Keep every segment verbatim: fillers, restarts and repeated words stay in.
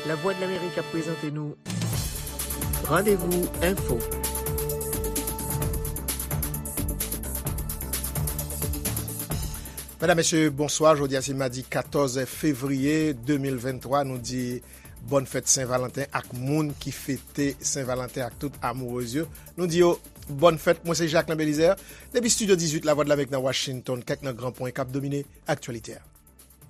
Lavwadlamerik ap prezante nou Randevou Enfo. Medam, mesye, bonswa. Jodi a se madi katòz fevriye de mil venntwa. Nou di bòn fèt Sen Valanten ak moun ki fete Sen Valanten ak tout amourez yo. Nou di yo bòn fèt. Mwen se Jacquelin Belizaire. Depi estidyo dizuit Lavwadlamerik nan Washington, kèk nan gran pwen k ap domine aktyalite a.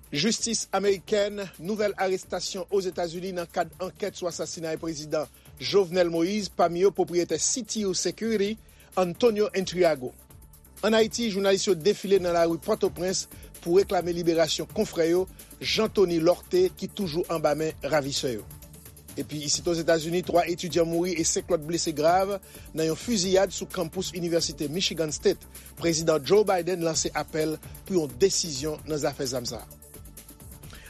Jistis amerikèn, nouvèl arestasyon Ozetazini nan kad ankèt sou asasinay prezidan Jovenel Moïse, pami yo pwopriyetè C T U Security, Antonio Intriago. Ann Ayiti, jounalis yo defile nan lari Pòtoprens pou reklame liberasyon konfrè yo, Jean Thony Lorthé, ki toujou anba men ravisè yo. Epi isit Ozetazini, twa etidyan mouri e senk lòt blese grav nan yon fiziyad sou kanpous Inivèsite Michigan State. Prezidan Joe Biden lanse apèl pou yon desizyon nan zafè zam sa a.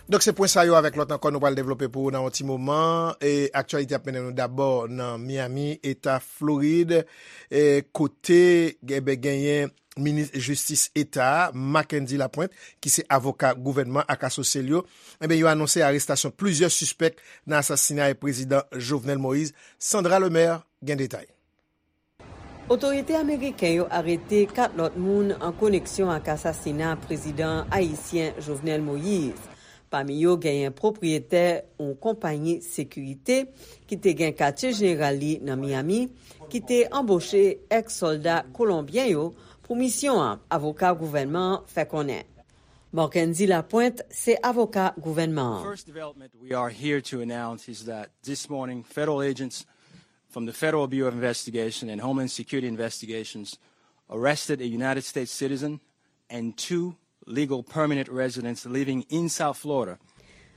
Donk, se pwen sa yo avèk lòt ankò nou pral devlope pou ou nan yon ti moman. E aktyalite ap mennen nou dabò nan Miami, Eta Florid, e kote, enben, genyen minis jistis Eta a, Mackendy Lapointe, ki se avoka gouvènman ak asosye l yo, enben, yo anonse arestasyon plizyè sispèk nan asasinay prezidan Jovenel Moïse. Sandra Lemaire gen detay. Otorite ameriken yo arete kat lòt moun an koneksyon ak asasina prezidan ayisyen Jovenel Moïse. Pami yo genyen pwopriyetè yon konpayi sekirite ki te gen katye jeneral li nan Miami, ki te anboche èks sòlda kolonbyen yo pou misyon an, avoka gouvènman an fè konnen. Marckendy Lapointe se avoka gouvènman an. First development we are here to announce is that this morning, federal agents from the Federal Bureau of Investigation and Homeland Security investigations arrested a United States citizen and two legal permanent residents living in South Florida.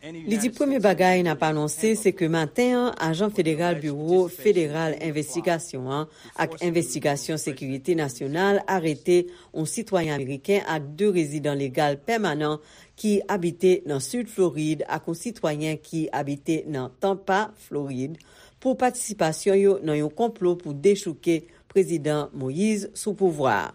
Li di premye bagay n ap anonse se ke maten an, ajan federal Biwo Federal Envestigasyon an ak Envestigasyon Sekirite Nasyonal arete yon sitwayen ameriken ak de rezidan legal pèmanan ki abite nan Sid Florid ak yon sitwayen ki abite nan Tampa, Florid, pou patisipasyon yo nan yon konplo pou dechouke Prezidan Moïse sou pouvwa a.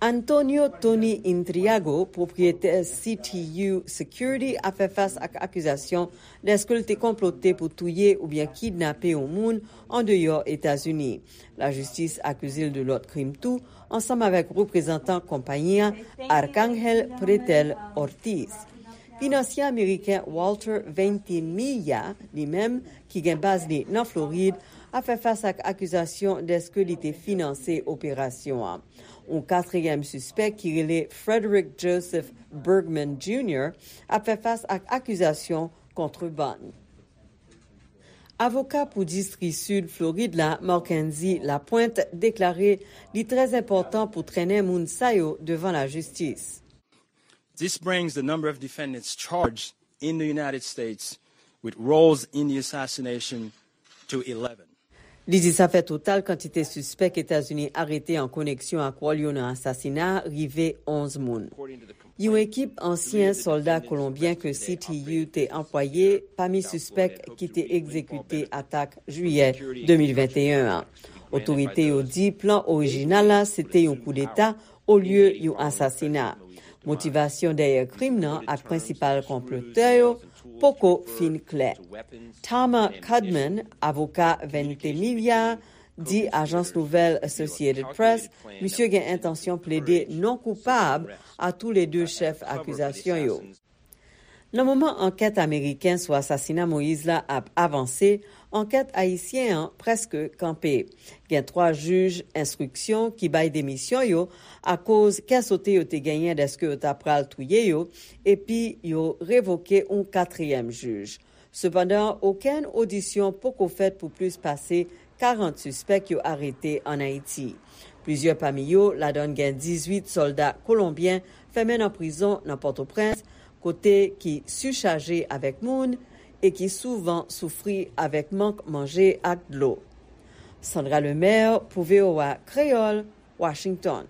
Antonio Tony Intriago, pwopriyetè C T U Security, ap fè fas ak akizasyon dèske l te konplote pou touye oubyen kidnape yon moun andeyò Etazini. Lajistis akize l de lòt krim tou, ansanm avèk reprezantan konpayi a, Arcángel Pretel Ortiz. Finansye ameriken Walter Ventimiglia, li menm, ki gen baz li nan Florid, ap fè fas ak akizasyon dèske li te finanse operasyon an. Yon katriyèm sispèk ki rele Frederick Joseph Bergman Junior ap fè fas ak akizasyon kontrebann. Avoka pou distri Sid Florid la, Marckendy Lapointe, deklare li trè enpòtan pou trennen moun sa yo devan lajistis. This brings the number of defendants charged in the United States with roles in the assassination to eleven. Li di sa fè total kantite sispèk Etazini arete an koneksyon ak wòl yo nan asasina a rive onz moun. Yon ekip ansyen sòlda kolonbyen ke C T U te anplwaye pami sispèk ki te egzekite atak jiyè de mil venteyen an. Otorite yo di plan orijinal la se te yon koudeta olye yon asasina. Motivasyon dèyè krim nan ak prensipal konplotè yo poko fin klè. Tama Cudman, avoka Ventimiglia, di ajans nouvèl Associated Press misye gen entansyon plede non koupab a toulede chèf akizasyon yo. Nan moman ankèt ameriken sou asasina Moïse la ap avanse, ankèt ayisyen an prèske kanpe. Gen twa jij enstriksyon ki bay demisyon yo akoz kè sote yo te genyen dèske yo ta pral touye yo, epi yo revoke yon katriyèm jij. Sepandan, okenn odisyon poko fèt pou plis pase karant sispèk yo arete ann Ayiti. Plizyè pami yo, ladan gen dizuit sòlda kolonbyen fèmen nan prizon nan Pòtoprens, kote ki sichaje avèk moun e ki souvan soufri avèk mank manje ak dlo. Sandra Lemaire pou V O A Kreyòl, Washington.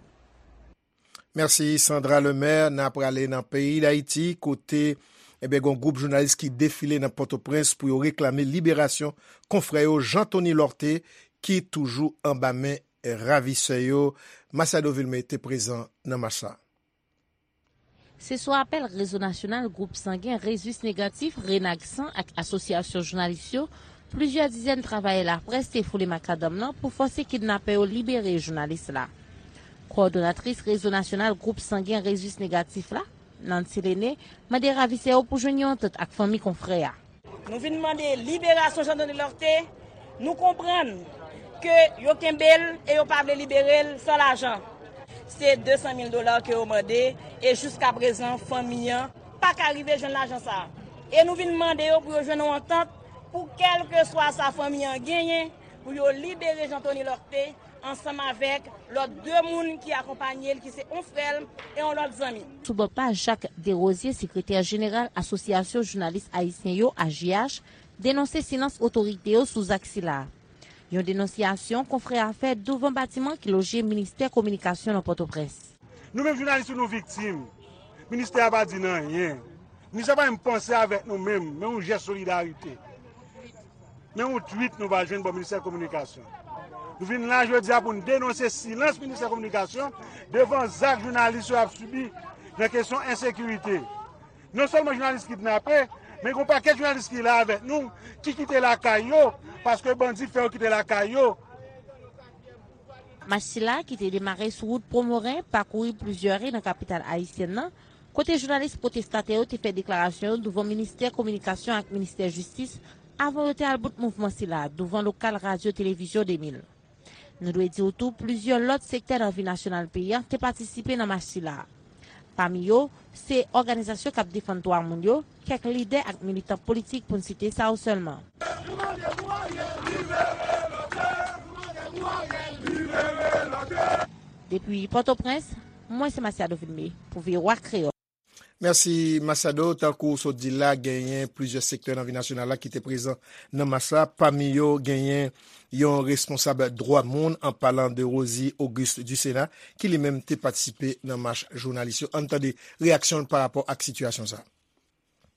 Mèsi, Sandra Lemaire. N a prale nan peyi Dayiti, kote, enben, gen yon gwoup jounalis ki defile nan Pòtoprens pou yo reklame liberasyon konfrè yo Jean Thony Lorthé, ki toujou anba men ravisè yo. Masiado Vilmé te prezan nan mach sa. Se sou apèl Rezo Nasyonal Gwoup Sangen Rezis Negatif, Renagsan, ak Asosyasyon Jounalis yo, plizyè dizèn travayè laprès te foule makadanm nan pou fòse kidnapè yo libere jounalis la. Kowòdonatris Rezo Nasyonal Gwoup Sangen Rezis Negatif la, Nancy Lene, mande ravisè yo pou jwenn yon antant ak fanmi konfrè a. Nou vin mande liberasyon Jean Denis Lorthé. Nou konprann ke yo kenbe l e yo pa vle libere l san lajan. Se de san mil dola ke yo mande e jiskaprezan fanmi an pa ka rive jwenn lajan sa a. E nou vin mande yo pou yo jwenn yon antant pou kèlkeswa sa fanmi an genyen pou yo libere Jean Denis Lorthé ansanm avèk lòt de moun ki akonpaye l, ki se yon frè l e yon lòt zanmi. Sou bò pa, Jacques Desrosiers, sekretè jeneral Asosyasyon Jounalis Ayisyen yo, A J H, denonse silans otorite yo sou zak sila. Yon denonsiyasyon konfrè a fè douvan batiman ki loje Ministè Kominikasyon nan Pòtoprens. Nou menm jounalis yo, nou viktim. Ministè a pa di n anyen. Ministè a pa menm panse avèk nou menm, men yon jès solidarite. Men yon twit nou pa jwenn bò Ministè Kominikasyon. Nou vin la jodi a pou n denonse silans Ministè Kominikasyon devan zak jounalis yo ap sibi nan kesyon ensekirite. Non sèlman jounalis kidnape, men gen yon pakèt jounalis ki la avèk nou, ki kite lakay yo, paske bandi fè yo kite lakay yo. Mach sila, ki te demare sou wout Pwomoren, pakouri plizyè ri nan kapital ayisyèn nan, kote jounalis pwotestatè yo te fè deklarasyon yo douvan Ministè Kominikasyon ak Ministè Jistis avan yo te al bout mouvman sila douvan lokal Radyo Televizyon de mil. Nou dwe di w tou, plizyè lòt sektè nan vi nasyonal peyi a te patisipe nan mach sila. Pami yo, se òganizasyon k ap defann dwa moun yo, kèk lidè ak militan politik, pou n site sa yo sèlman. Depi Pòtoprens, mwen se Masiado Vilmé pou V O A Kreyòl. Mèsi, Masiado. Tankou w sot di l la, genyen plizyè sektè nan vi nasyonal la ki te prezan nan mach la. Pami yo, genyen yon responsab dwa moun, an palan de Rosie Auguste Ducéna, ki li menm te patisipe nan mach jounalis yo. Ann tande reyaksyon l parapò ak sitiyasyon sa a.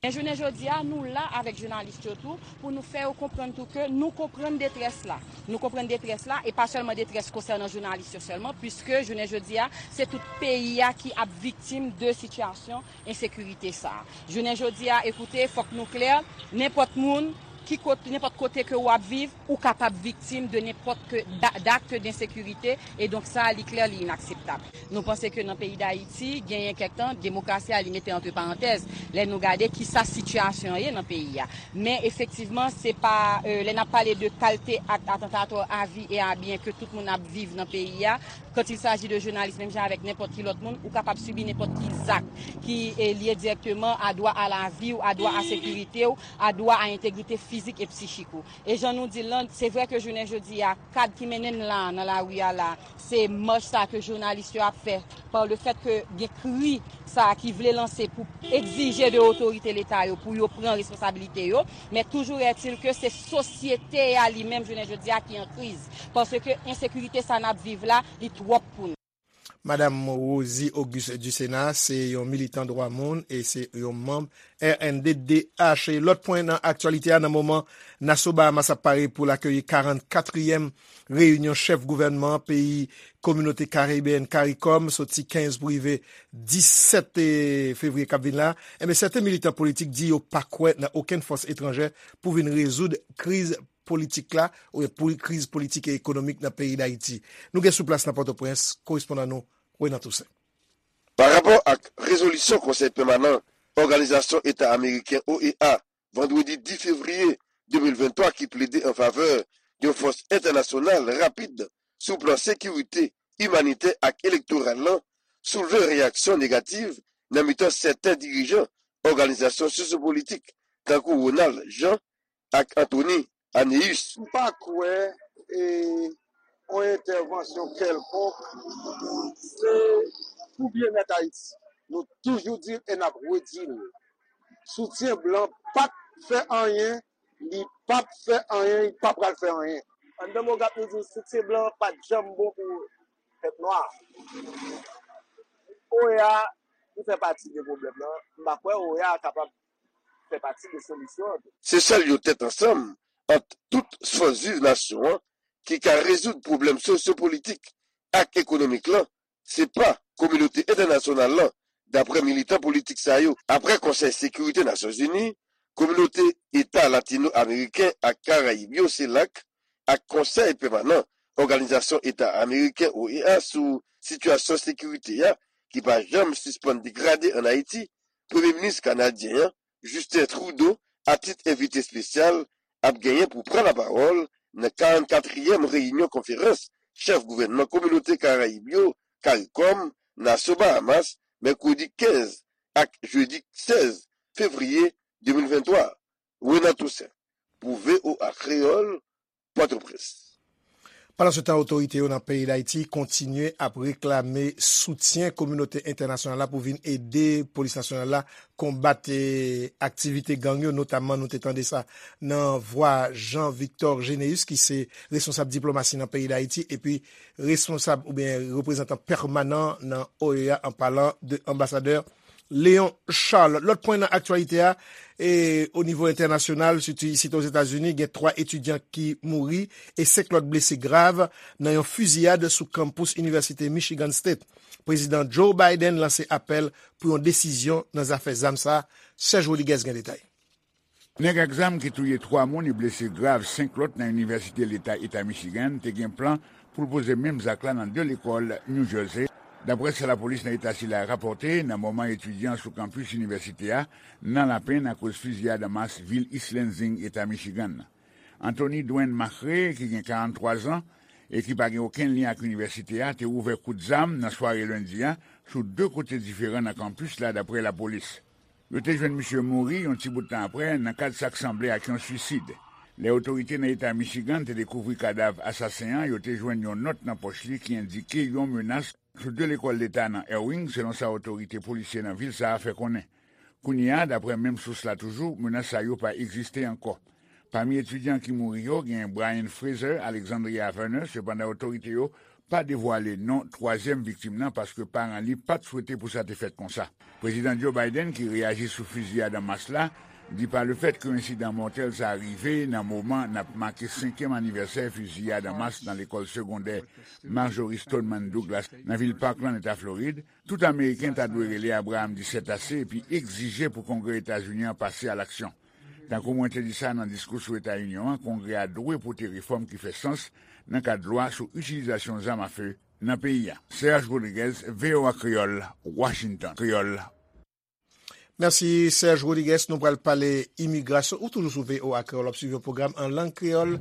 Men jounen jodi a, nou la avèk jounalis yo tou, pou nou fè yo konprann tou ke nou konprann detrès la. Nou konprann detrès la, e pa sèlman detrès konsènan jounalis yo sèlman, piske jounen jodi a, se tout peyi a ki ap viktim de sitiyasyon ensekirite sa a. Jounen jodi a, ekoute, fòk nou klè, nenpòt moun, ki kot-, nenpòt kote ke w ap viv, ou kapab viktim de nenpòt ke da-, d'akt d'ensekirite, e donk sa, li klè, li inakseptab. Nou panse ke nan peyi Dayiti, genyen kèk tan, demokrasi a, li mete antre parantèz, lè nou gade kisa sitiyasyon an ye nan peyi a. Men efektivman, se pa, euh, lè n ap pale de kalte akt atantatò a vi e a byen ke tout moun ap viv nan peyi a, quand il s'agit de jounalis, menm jan avèk nenpòt ki lòt moun, ou kapab sibi nenpòt ki zak ki, eh, lye dirèkteman a dwa a lavi w, a dwa a sekirite w, a dwa a entegrite fizik e psichik ou. E jan nou di l lan, se vre ke jounen jodi a, kad ki mennen n la, nan lari a la, se mach sa ke jounalis yo ap fè, pa le fèt ke gen kri sa ki vle lanse pou egzije de otorite Leta yo pou yo pran responsabilite yo, men toujou ètil ke se sosyete a li menm jounen jodi a ki an kriz, paske ensekirite sa n ap viv la, li twòp pou nou. Madam Rosie Auguste Ducéna se yon militan dwa moun e se yon manm R N D D H. E lòt pwen nan aktyalite a, nan moman, Nassau Bahamas ap pare pou l akeyi karannkatriyèm reyinyon chèf gouvènman peyi Kominote Karibeyèn, karikòm, soti kenz pou rive disèt fevriye k ap vin la. Enben, sèten militan politik di yo pa kwè nan okenn fòs etranjè pou vin rezoud kriz politik la, oubyen pou kriz politik e ekonomik nan peyi Dayiti. Nou gen sou plas nan Pòtoprens, korespondan nou, Renan Toussaint. Pa rapò ak rezolisyon Konsèy Pèmanan Òganizasyon Eta Ameriken, O E A, vandredi dis fevriye de mil venntwa, ki plede an favè yon fòs entènasyonal rapid sou plan sekirite, imanitè ak elektoral lan, soulve reyaksyon negativ nan mitan sèten dirijan òganizasyon sosyopolitik, tankou Ronald Jean ak Anthony Anéus. M pa kwè e, yon entèvansyon kèlkonk, se pou byennèt Ayiti. Nou toujou di l e n ap redi l. Soutyen blan pa t fè anyen, li p ap fè anyen, li pa pral fè anyen. Anndan mo gap nou di w, soutyen blan pa t janm bon pou pèp nwa. O E A, li fè pati de pwoblèm nan. M pa kwè O E A kapab fè pati de solisyon an tou. Se sèl yon tèt ansanm ant tout fòs viv nasyon an ki ka rezoud pwoblèm sosyopolitik ak ekonomik lan, se pa kominote entènasyonal lan, daprè militan politik sa yo. Aprè Konsèy Sekirite Nasyonzini, Kominote Eta Latino-Ameriken ak Karayib yo, CELAC, ak Konsèy Pèmanan Òganizasyon Eta Ameriken, O E A, sou sitiyasyon sekirite a, ki pa janm sispann degrade ann Ayiti, Premye Minis kanadyen an, Justin Trudeau, atit envite espesyal, ap genyen pou pran lapawòl nan karannkatriyèm reyinyon konferans chèf gouvènman kominote Karayib yo, karikòm, Nasyon Bahamas, mèkredi kenz ak jedi sèz fevriye de mil venntwa. Renan Toussaint, pou V O A Kreyòl, Pòtoprens. Pandansetan, otorite yo nan peyi Dayiti kontinye ap reklame soutyen kominote entènasyonal la pou vin ede polis nasyonal la konbat, eh, aktivite gang yo, notamman nou te tande sa nan vwa Jean Victor Généus, ki se responsab diplomasi nan peyi Dayiti, epi responsab oubyen reprezantan pèmanan nan O E A, an palan de anbasadè Léon Charles. Lòt pwen nan aktyalite a, e o nivo entènasyonal, sitou isit Ozetazini, gen twa etidyan ki mouri e senk lòt blese grav nan yon fiziyad sou kanpous Inivèsite Michigan State. Prezidan Joe Biden lanse apèl pou yon desizyon nan zafè zam sa a. Serge Rodriguez gen detay. Nèg ak zam ki touye twa moun e blese grav senk lòt nan Inivèsite Leta Eta Michigan te gen plan pou l poze menm zak la nan de lekòl New Jersey, daprè sa lapolis nan eta sila rapòte nan moman etidyan sou kanpis inivèsite a nan lapenn akoz fiziyad an mas vil East Lansing, Eta Michigan. Anthony Dwayne Macrae, ki gen karanntwa zan e ki pa gen okenn lyen ak inivèsite a, te ouvè kout zam nan sware lendi a sou de kote diferan nan kanpis la, daprè lapolis. Yo te jwenn misye mouri yon ti bout tan aprè nan kad sa k sanble ak yon swisid. Lè otorite nan eta Michigan te dekouvri kadav asasen an, yo te jwenn yon nòt nan pòch li ki endike yon menas sou de lekòl leta nan Erwin, selon sa otorite polisye nan vil sa a fè konnen. Kounye a, daprè menm sous la toujou, menas sa yo pa egziste ankò. Pami etidyan ki mouri yo, gen Brian Fraser, Alexandria Verner, sepandan otorite yo pa devwale non twazyèm viktim nan paske paran li pa t swete pou sa te fèt konsa. Prezidan Joe Biden, ki reyaji sou fiziyad an mas la, di pa lefèt ke ensidan mòtèl sa a rive nan moman n ap make senkyèm anivèsè fiziyad an mas nan lekòl segondè Marjory Stoneman Douglas nan vil Parkland, Eta Florid, tout Ameriken ta dwe rele Abraham di sèt ase epi egzije pou Kongrè Etazini an pase a laksyon. Tankou mwen te di sa nan diskou sou Eta Inyon an, Kongrè a dwe pote refòm ki fè sans nan kad lwa sou itilizasyon zam afe nan peyi a. Serge Rodriguez, V O A Kreyòl, Washington. Kreyòl. Mèsi, Serge Rodriguez. Nou pral pale imigrasyon. Ou toujou sou V O A Kreyòl, w ap swiv yon pwogram an lang kreyòl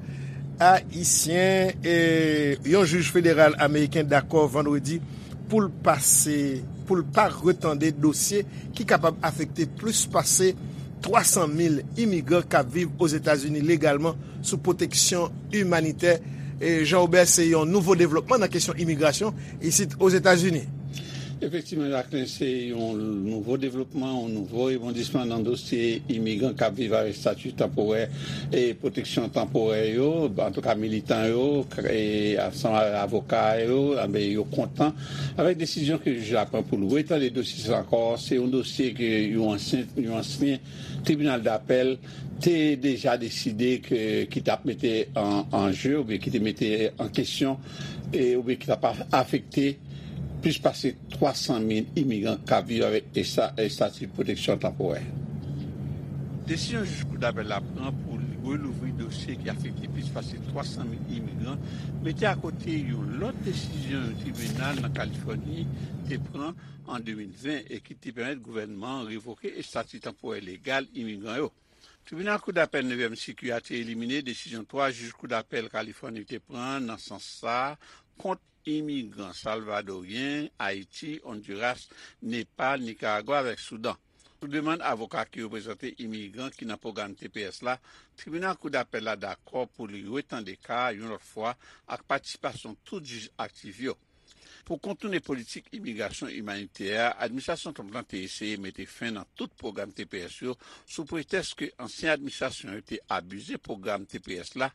ayisyen. E yon jij federal ameriken dakò vandredi pou l pase, pou l pa retande dosye ki kapab afekte plis pase twa san mil imigran k ap viv Ozetazini legalman sou pwoteksyon imanitè. E Jean Robert, se yon nouvo devlopman nan kesyon imigrasyon isit Ozetazini. Efektivman, Jacquelin, se yon nouvo devlopman, yon nouvo rebondisman nan dosye imigran k ap viv avèk estati tanporè e pwoteksyon tanporè yo, antouka militan yo, k- e ansanm avèk avoka yo, anben, yo kontan avèk desizyon ke jij la pran pou l retande dosye sa ankò. Se yon dosye ke yon ansyen, yon ansyen tribinal dapèl te deja deside ke, ki t ap mete an, an je oubyen ki te mete an kesyon e, oubyen ki t ap afekte plis pase twa san mil imigran k ap viv avèk esta- estati pwoteksyon tanporè. Desizyon jij kou dapèl la pran pou li relouvri dosye ki afekte plis pase twa san mil imigran mete akote yon lòt desizyon yon tribinal nan Kalifòni te pran an de mil ven e ki te pèmèt gouvènman an revoke estati tanporè legal imigran yo. Tribinal Kou Dapèl Nevyèm Siki a te elimine desizyon twa jij Kou Dapèl Kalifòni te pran nan sans sa a kont imigran salvadoryen, Ayiti, Ondiras, Nepal, Nikaragwa avèk Soudan. Sou demann avoka ki reprezante imigran ki nan pwogram T P S la, Tribinal Kou Dapèl la dakò pou li retande ka a yon lòt fwa ak patisipasyon tout jij aktif yo. Pou kontoune politik imigrasyon imanitè a, administrasyon Trump lan te eseye mete fen nan tout pwogram T P S yo sou pretèks ke ansyen administrasyon yo te abize pwogram T P S la.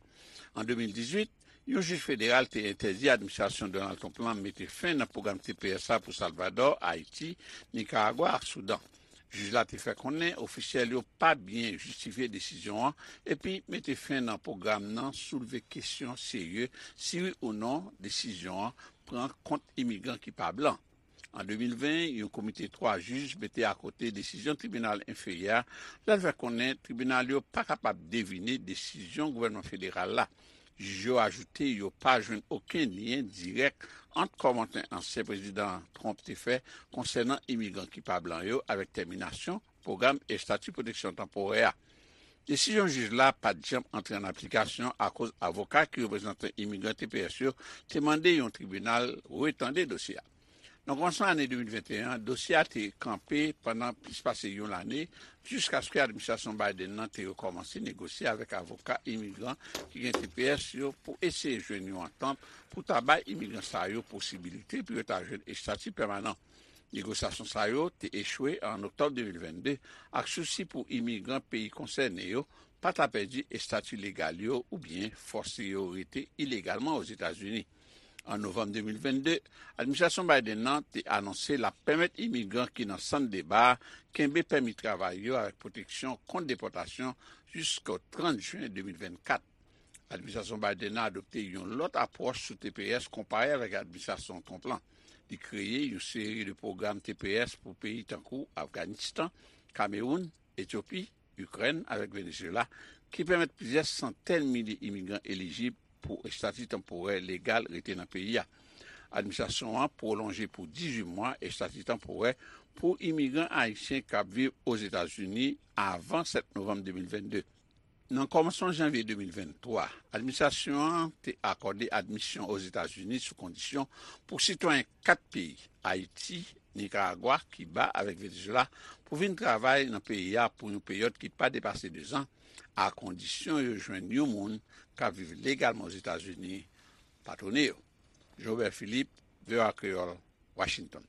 An de mil dizuit, yon jij federal te entèdi administrasyon Donald Trump lan mete fen nan pwogram T P S la pou Salvadò, Ayiti, Nikaragwa ak Soudan. Jij la te fè konnen ofisyèl yo pa byen jistifye desizyon an epi mete fen nan pwogram nan soulve kesyon serye si wi ou non desizyon an pran kont imigran ki pa blan. An de mil ven, yon komite twa jij mete akote desizyon tribinal enferyè a, lè l fè konnen tribinal yo pa kapab devine desizyon gouvènman federal la. Jij yo ajoute yo pa jwenn okenn lyen dirèk ant kòmantè ansyen prezidan Trump te fè konsènan imigran ki pa blan yo avèk tèminasyon pwogram estati pwoteksyon tanporè a. Desizyon jij la pa t janm antre an aplikasyon akoz avoka ki reprezante imigran T P S yo te mande yon tribinal retande dosye a. Nan kòmansman ane de mil venteyen an, dosye a te kanpe pandan plis pase yon lane, jiskaske administrasyon Biden nan te rekòmanse negosye avèk avoka imigran ki gen T P S yo pou eseye jwenn yon antant pou ta bay imigran sa yo posibilite pou yo ta jwenn estati pèmanan. Negosyasyon sa yo te echwe an oktòb de mil vennde ak sousi pou imigran peyi konsène yo pa ta pèdi estati legal yo oubyen fòse yo rete ilegalman Ozetazini. An novanm de mil vennde, administrasyon Biden nan te anonse l ap pèmèt imigran ki nan sant deba a kenbe pèmi travay yo avèk pwoteksyon kont depòtasyon jiska trant jen de mil vennkat. Administrasyon Biden nan adopte yon lòt apwòch sou T P S konpare avèk administrasyon Trump lan. Li kreye yon seri de pwogram T P S pou peyi tankou Afganistan, Kamewoun, Etyopi, Ikrèn avèk Venezuela, ki pèmèt plizyè santèn milye imigran elijib pou estati tanporè legal rete nan peyi a. Administrasyon an pwolonje pou dizuit mwa estati tanporè pou imigran ayisyen k ap viv Ozetazini avan sèt novanm de mil vennde. Nan kòmansman janvye de mil venntwa, administrasyon an te akòde admisyon Ozetazini sou kondisyon pou sitwayen kat peyi, Ayiti, Nikaragwa, Kiba avèk Venezuela, pou vin travay nan peyi a pou yon peryòd ki pa depase dezan, a kondisyon yo jwenn yon moun k ap viv legalman Ozetazini patwone yo. Jean Robert Philippe, V O A Kreyòl, Washington.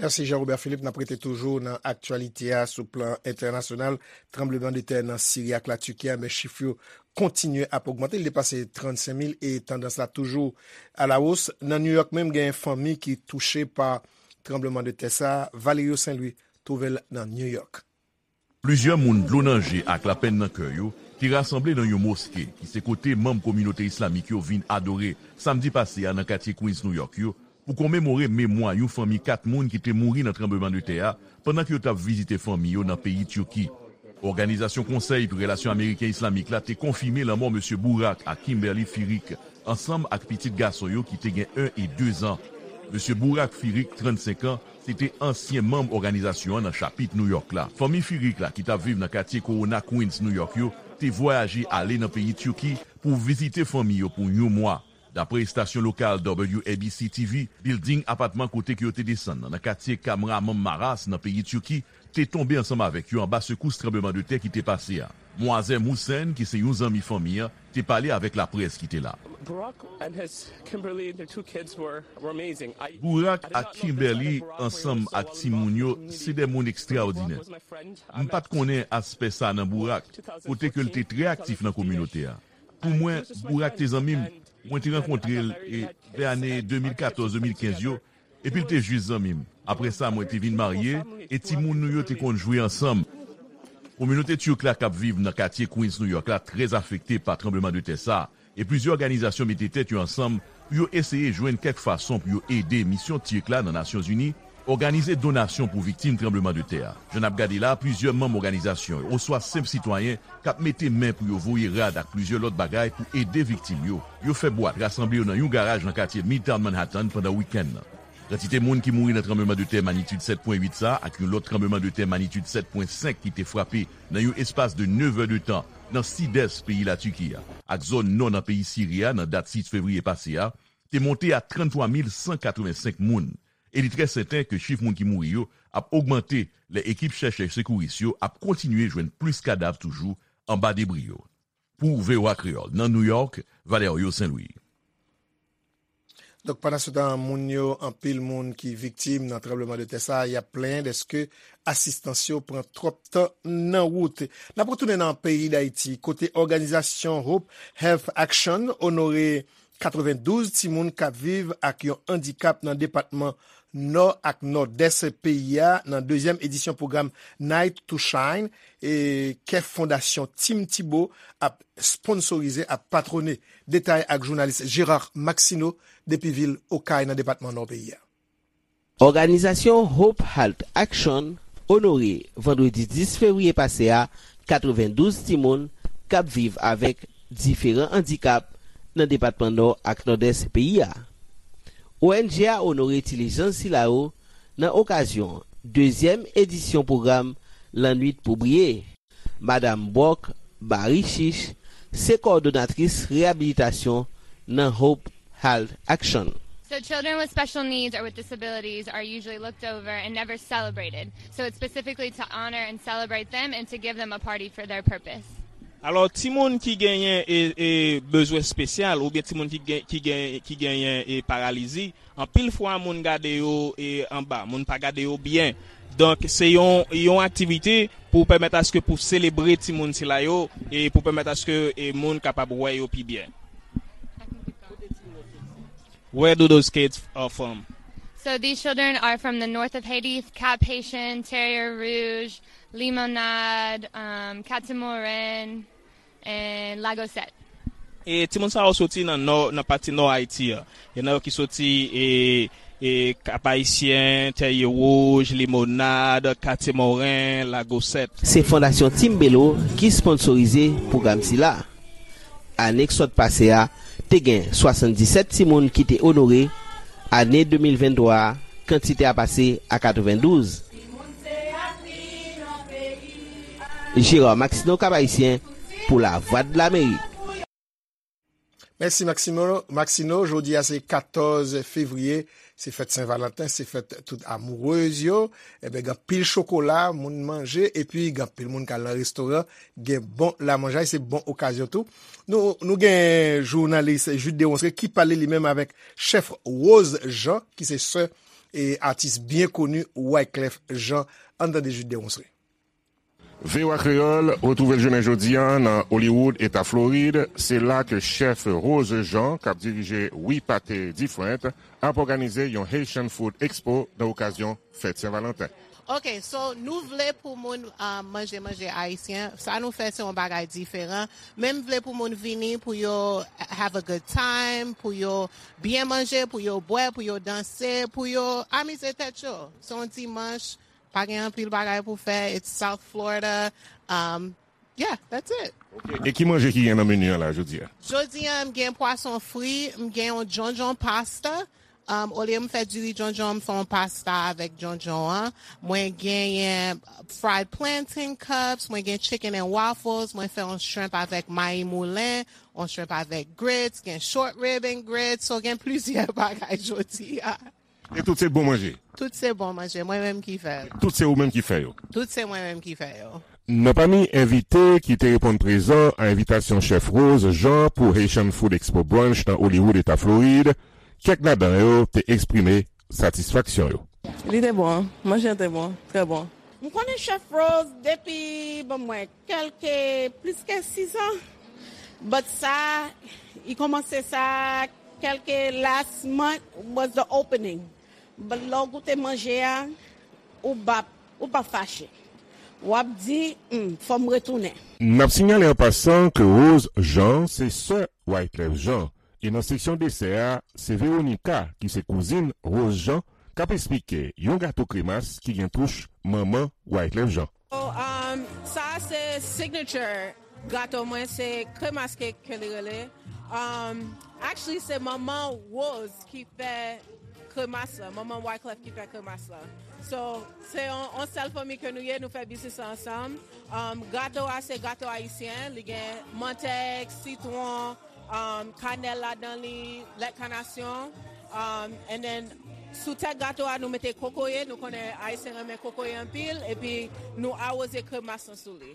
Mèsi Jean Robert Philippe. N ap rete toujou nan aktyalite a sou plan entènasyonal. Tranbleman de tè nan Siri ak Latiki a, men chif yo kontinye ap ogmante. Li depase trannsenk mil e tandans la toujou alawos. Nan New York menm, gen fanmi ki touche pa tranbleman de tè sa a. Valerio Saint Louis twouve l nan New York. Plizyè moun dlo nan je ak lapenn nan kè yo te rasanble nan yon moske ki se kote manm kominote islamik yo vin adore samdi pase a nan katye Queens, New York yo, pou komemore memwa yon fanmi kat moun ki te mouri nan tranblemanntè a pandan ke yo t ap vizite fanmi yo nan peyi Tiki. Òganizasyon Konsèy pou Relasyon Ameriken Islamik la te konfime lanmò Mesye Bourak ak Kimberly Firik, ansanm ak pitit gason yo ki te gen en e de zan. Mesye Bourak Firik, trannsenk an, se te ansyen manm òganizasyon an nan chapit New York la. Fanmi Firik la ki t ap viv nan katye Corona Queens, New York yo, te vwayaje ale nan peyi Tiki pou vizite fanmi yo pou yon mwa. Dapre estasyon lokal W A B C T V, bilding apatman kote ke yo te desann nan, nan katye Kahramanmaraş nan peyi Tiki, te tonbe ansanm avèk yo anba sekous tranblemanntè ki te pase a. Muazzem Hussein, ki se yon zanmi fanmi an, te pale avèk laprès ki te la. Bourak ak Kimberly ansanm ak timoun yo se de moun ekstraòdinè. M pa t konnen aspè sa nan Bourak, kote ke l te trè aktif nan kominote a. Pou mwen, Bourak te zanmi m. Mwen te rankontre l e vè ane de mil katòz, de mil kenz yo, epi l te jis zanmi m. Apre sa, mwen te vin marye e timoun nou yo te konn jwe ansanm. Kominote Tirk la k ap viv nan katye Queens, New York la trè afekte pa tranblemanntè sa a, e plizyè òganizasyon mete tèt yo ansanm pou yo eseye jwenn kèk fason pou yo ede Misyon Tirk la nan Nasyonzini òganize donasyon pou viktim tranblemanntè a. Jan n ap gade la, plizyè manm òganizasyon yo oswa senp sitwayen k ap mete men pou yo voye rad ak plizyè lòt bagay pou ede viktim yo. Yo fè bwat, rasanble yo nan yon garaj nan katye Midtown Manhattan pandan wikenn nan. Kantite moun ki mouri nan tranblemanntè manyitid sèt pwen uit sa a ak yon lòt tranblemanntè manyitid sèt pwen senk ki te frape nan yon espas de nevè de tan nan sidès peyi Latiki a ak zòn nò nan peyi Siri a nan dat sis fevriye pase a, te monte a tranntwa mil san katrevensenk moun, e li trè sèten ke chif moun ki mouri yo ap ogmante lè ekip chèchè sekouris yo ap kontinye jwenn plis kadav toujou anba debri yo. Pou V O A Kreyòl, nan New York, Valerio Saint Louis. Donk, pandan se tan, moun yo, anpil moun ki viktim nan tranblemanntè sa a, y ap plenyen dèske asistans yo pran twòp tan nan wout. N ap retounen nan peyi Dayiti, kote òganizasyon Hope Health Action onore katrevendouz timoun k ap viv ak yon andikap nan depatman Nò ak Nòdès peyi a nan dezyèm edisyon pwogram Night to Shine, e, ke Fondasyon Tim Thibault ap sponsorize, ap patwone. Detay ak jounalis Gérard Maxineau depi vil Okay nan depatman Nò peyi a. Òganizasyon Hope Health Action onore vandredi dis fevriye pase a katrevendouz timoun k ap viv avèk diferan andikap nan depatman Nò ak Nòdès peyi a. O N G a onore ti lejann sila yo nan okazyon dezyèm edisyon pwogram Lannwit pou Briye. Madam Brock Barichich se kowòdonatris reyabilitasyon nan Hope Health Action. So children with special needs or with disabilities are usually looked over and never celebrated. So it's specifically to honor and celebrate them and to give them a party for their purpose. Alò, timoun ki genyen e, e, bezwen espesyal oubyen timoun ki gen, ki gen, ki genyen e, paralizi, anpil fwa moun gade yo e, anba, moun pa gade yo byen. Donk, se yon, yon aktivite pou pèmèt aske pou selebre timoun sila yo e pou pèmèt aske e, moun kapab wè yo pi byen. Where do those kids are from? So these children are from the north of Haiti, Cap Haitian, Terre Rouge, Limonade, um, Catamaran, and Lagosette. E timoun sa yo soti nan nò, nan pati nò Ayiti a. Gen nan yo ki soti e, e Cap Haïtien, Terre Rouge, Limonade, Catamaran, Lagosette. Se Fondasyon Timbelo ki sponsorize pwogram sila. Ane k sot pase a, te gen swasanndisèt timoun ki te onore. Ane de mil venntwa a, kantite a pase a katrevendouz. Gérard Maxineau, Cap Haïtien, pou Lavwadlamerik. Mèsi Maximo, Maxino. Jodi a se katòz fevriye, se fèt Sen Valanten, se fèt tout amourez yo. Enben, gen anpil chokola, moun manje, epi gen anpil moun k al nan restoran, gen bon lamanjay, se bon okazyon tou. Nou, nou gen jounalis Jude Deronceray ki pale li menm avèk chèf Rose Jean, ki se sè e atis byen koni Wyclef Jean. Ann tande Jude Deronceray. V O A Kreyòl retwouve l jounen jodi a nan Hollywood, eta Florid. Se la ke chèf Rose Jean, k ap dirije We Pate Different, ap òganize yon Haitian Food Expo nan okazyon fèt Sen Valanten. Ok, so nou vle pou moun, um, manje manje ayisyen. Sa nou fè se yon bagay diferan. Men m vle pou moun vini, pou yo have a good time, pou yo byen manje, pou yo bwè, pou yo danse, pou yo amize tèt yo. Se yon dimanch, pa gen anpil bagay pou fè. It's South Florida. Um, yeah, that's it. Ok. E ki manje ki gen nan meni an la jodi a? Jodi a, m gen pwason fri, m gen yon djondjon pasta. Um, olye m fè diri djondjon, m fè yon pasta avèk djondjon an. Mwen genyen fried plantain cups, mwen gen chicken and waffles, mwen fè yon shrimp avèk mayi moulen, yon shrimp avèk grits, gen short rib and grits, so gen plizyè bagay jodi a. E tout se bon manje? Tout se bon manje, mwen menm ki fè l. Tout se ou menm ki fè yo? Tout se mwen menm ki fè yo. Nan pami envite ki te reponn prezan a envitasyon chèf Rose Jean pou Haitian Food Expo Brunch nan Hollywood, eta Florid, kèk ladan yo te eksprime satisfaksyon yo. Li te bon, manje an te bon, trè bon. M konnen chèf Rose depi, bon, mwen, kèlke, plis ke sis an. But sa, li kòmanse sa, kèlke last month was the opening. But lè w goute manje a, ou p ap, ou p ap fache. W ap di, hmm, fò m retounen. N ap sinyale an pasan ke Rose Jean se sè Wyclef Jean. E nan seksyon desè a, se Veronica, ki se kouzin Rose Jean, k ap esplike yon gato kremas ki gen touch manman Wyclef Jean. So, um, sa se signature gato mwen, se kremas cake ke li rele. Um, actually, se manman Rose ki fè kremas la, manman Wyclef ki fè kremas la. So, se yon, yon sèl fanmi ke nou ye, nou fè biznis la ansanm. Um, gato a, se gato ayisyen, li gen mantèg, sitwon, um, kanèl ladan li, lèt kanasyon. Um, and then, sou tèt gato a, nou mete kokoye, nou konnen ayisyen renmen kokoye anpil, epi nou awoze kremas lan sou li.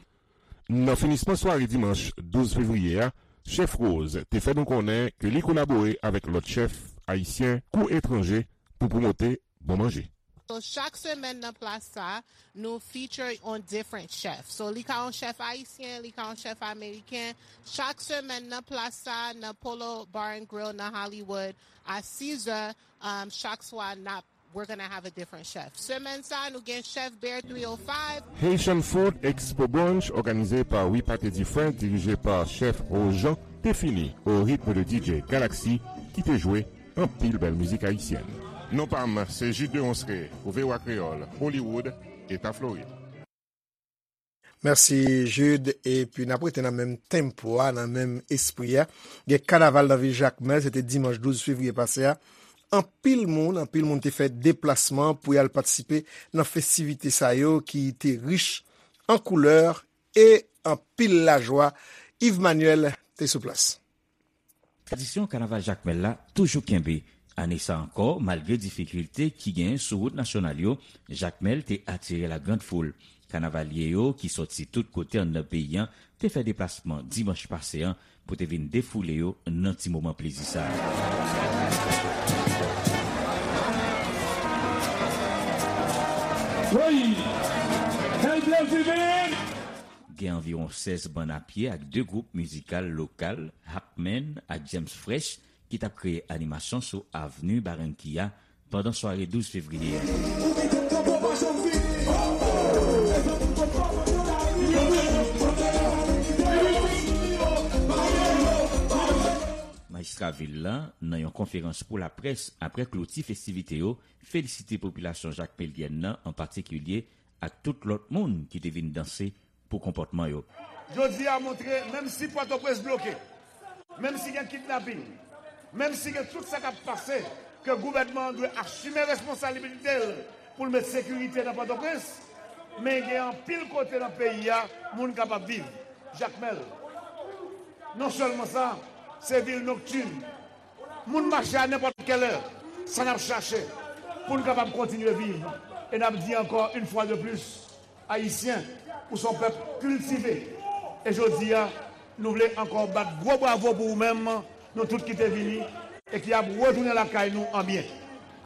Nan finisman sware dimanch douz fevriye a, chèf Rose te fè nou konnen ke li kolabore avèk lòt chèf ayisyen kou etranje pou pwomote bon manje. So, chak semèn nan plas sa, nou feature on different chef. So, li ka yon chèf ayisyen, li ka yon chèf ameriken. Chak semèn nan plas sa, nan Polo Bar and Grill nan Hollywood, a sis zè, um, chak swa, n ap, we're gonna have a different chef. Semèn sa, nou gen chèf Bear three oh five. Haitian Food Expo Brunch, òganize pa We Pate Different, dirije pa chèf Rose Jean, te fini au rythme de D J Galaxy, ki te jwe anpil bèl mizik ayisyèn. Non pa m, se Jude de Ronsre pou V O A Kreyòl, Hollywood, Eta Florid. Mèsi, Jude. Epi n ap rete nan menm tempo a, nan menm espri a. Gen kanaval nan vil Jakmèl, se te dimanch douz fevriye pase a. Anpil moun, anpil moun te fè deplasman pou y al patisipe nan festivite sa yo ki te rich an koulè e anpil lajwa. Yves Manuel te sou plas. Tradisyon kanaval Jakmèl la toujou kenbe. Ane sa ankò, malgre difikilte ki genyen sou wout nasyonal yo, Jakmèl te atire la grande foule. Kanavalye yo, ki sòti tout kote anndan peyi an, te fè deplasman dimanch pase an pou te vin defoule yo nan ti moman plezi sa a. Wi! Quel plaisir! Gen anviwon sèz bann a pye ak de gwoup mizikal lokal, Hakmen ak James Fresh, ki t ap kreye animasyon sou avni Barranquilla pandan sware douz fevriye a. Majistra vil la, nan yon konferans pou laprès apre kloti festivite yo, felisite popilasyon jakmelyèn nan an patikilye ak tout lòt moun ki te vin danse pou konpòtman yo. Jodi a montre, menm si Pòtoprens bloke, menm si gen kidnaping, menm si gen tout sa k ap pase, ke gouvènman an dwe asime responsablite l pou l met sekirite nan Pòtoprens, men gen anpil kote nan peyi a, moun kapab viv. Jakmèl, non sèlman sa, se vil noktin. Moun mache a nenpòt kèlè, sa n ap chache pou n kapab kontinye viv. E n ap di ankò, une fois de plus, Ayisyen, ou se yon pèp kiltive. E jodi a, nou vle ankò bat gwo bravo pou ou menm, nou tout ki te vini e ki ap retounen lakay nou an byen.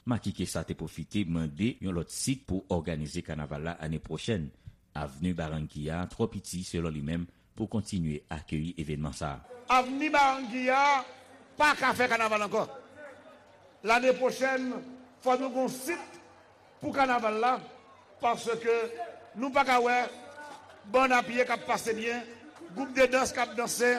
Makike sa te pwofite mande yon lòt sit pou òganize kanaval la ane pwochèn. Avni Barranquilla twò piti, selon li menm, pou kontinye akeyi evènman sa a. Avni Barranquilla pa ka fè kanaval ankò. Lane pwochèn, fò nou gon sit pou kanaval la, paske nou pa ka wè bann a pye k ap pase byen, gwoup de dans k ap danse,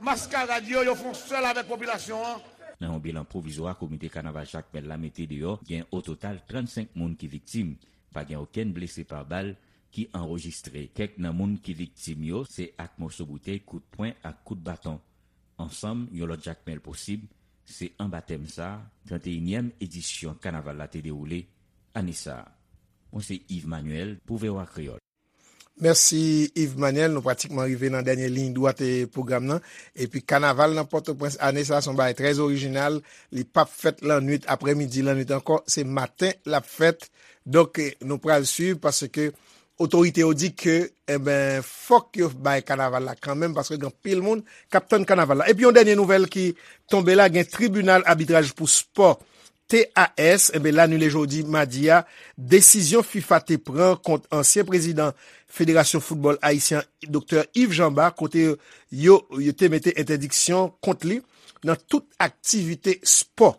maskarad yo, yo fè yon sèl avèk popilasyon an. Nan yon bilan pwovizwa komite kanaval Jakmèl la mete deyò, gen o total trannsenk moun ki viktim. Pa gen okenn blese pa bal ki anrejistre. Kèk nan moun ki viktim yo se ak moso boutèy, kout pwen ak kout baton. Ansanm, yon lòt Jakmèl posib, se anba tèm sa a, tranteyinyèm edisyon kanaval la te dewoule ane sa a. Mwen se Yves Manuel pou V O A Kreyòl. Mèsi, Yves Manuel. Nou pratikman rive nan dènye liy dwat, e, pwogram nan. Epi kanaval nan Pòtoprens ane sa a se yon bagay trè orijinal. Li p ap fèt lannwit, aprèmidi, lannwit ankò. Se maten l ap fèt. Donk, e, nou pral swiv paske otorite yo di ke, enben, fòk yo bay kanaval la kanmenm, paske gen anpil moun k ap tann kanaval la. Epi yon dènye nouvèl ki tonbe la, gen tribinal abitraj pou spò, T A S, enben, l anile jodi madi a desizyon fifa te pran kont ansyen prezidan Federasyon Foutbòl Ayisyen, Doktè Yves Jean Bart, kote yo, yo te mete entèdiksyon kont li nan tout aktivite spò.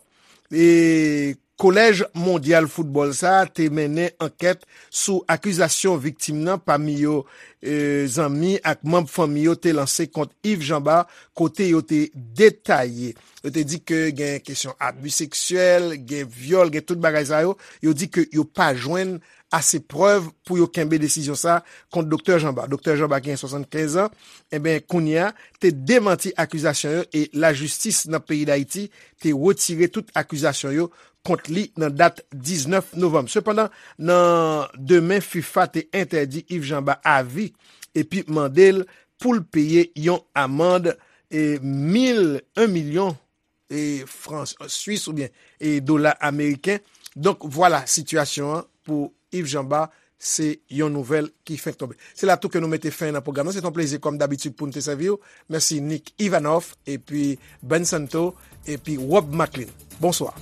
E Kolèj Mondyal Foutbòl sa a te mennen ankèt sou akizasyon viktim nan, pami yo, e, zanmi ak manm fanmi yo te lanse kont Yves Jean Bart, kote yo te detaye. Yo te di ke gen kesyon abi seksyèl, gen vyòl, gen tout bagay sa yo. Yo di ke yo pa jwenn ase prèv pou yo kenbe desizyon sa a kont Doktè Jean Bart. Doktè Jean Bart, ki gen swasannkenz an, enben, kounye a, te demanti akizasyon yo e lajistis nan peyi Dayiti te retire tout akizasyon yo kont li nan dat diznèf novanm. Sepandan, nan demen, fifa te entèdi Yves Jean Bart avi epi mande l pou l peye yon amann, e, mil, yon milyon, e, fran swis oubyen, e, dola ameriken. Donk, vwala sitiyasyon an pou Yves Jean Bart, se yon nouvèl ki fenk tonbe. Se la tou ke nou mete fen nan pwogram nan. Se te yon plezi, kòm dabitid, pou n te sèvi w. Mèsi Nick Ivanov, epi Ben Santo, epi Rob Maclean. Bonswa.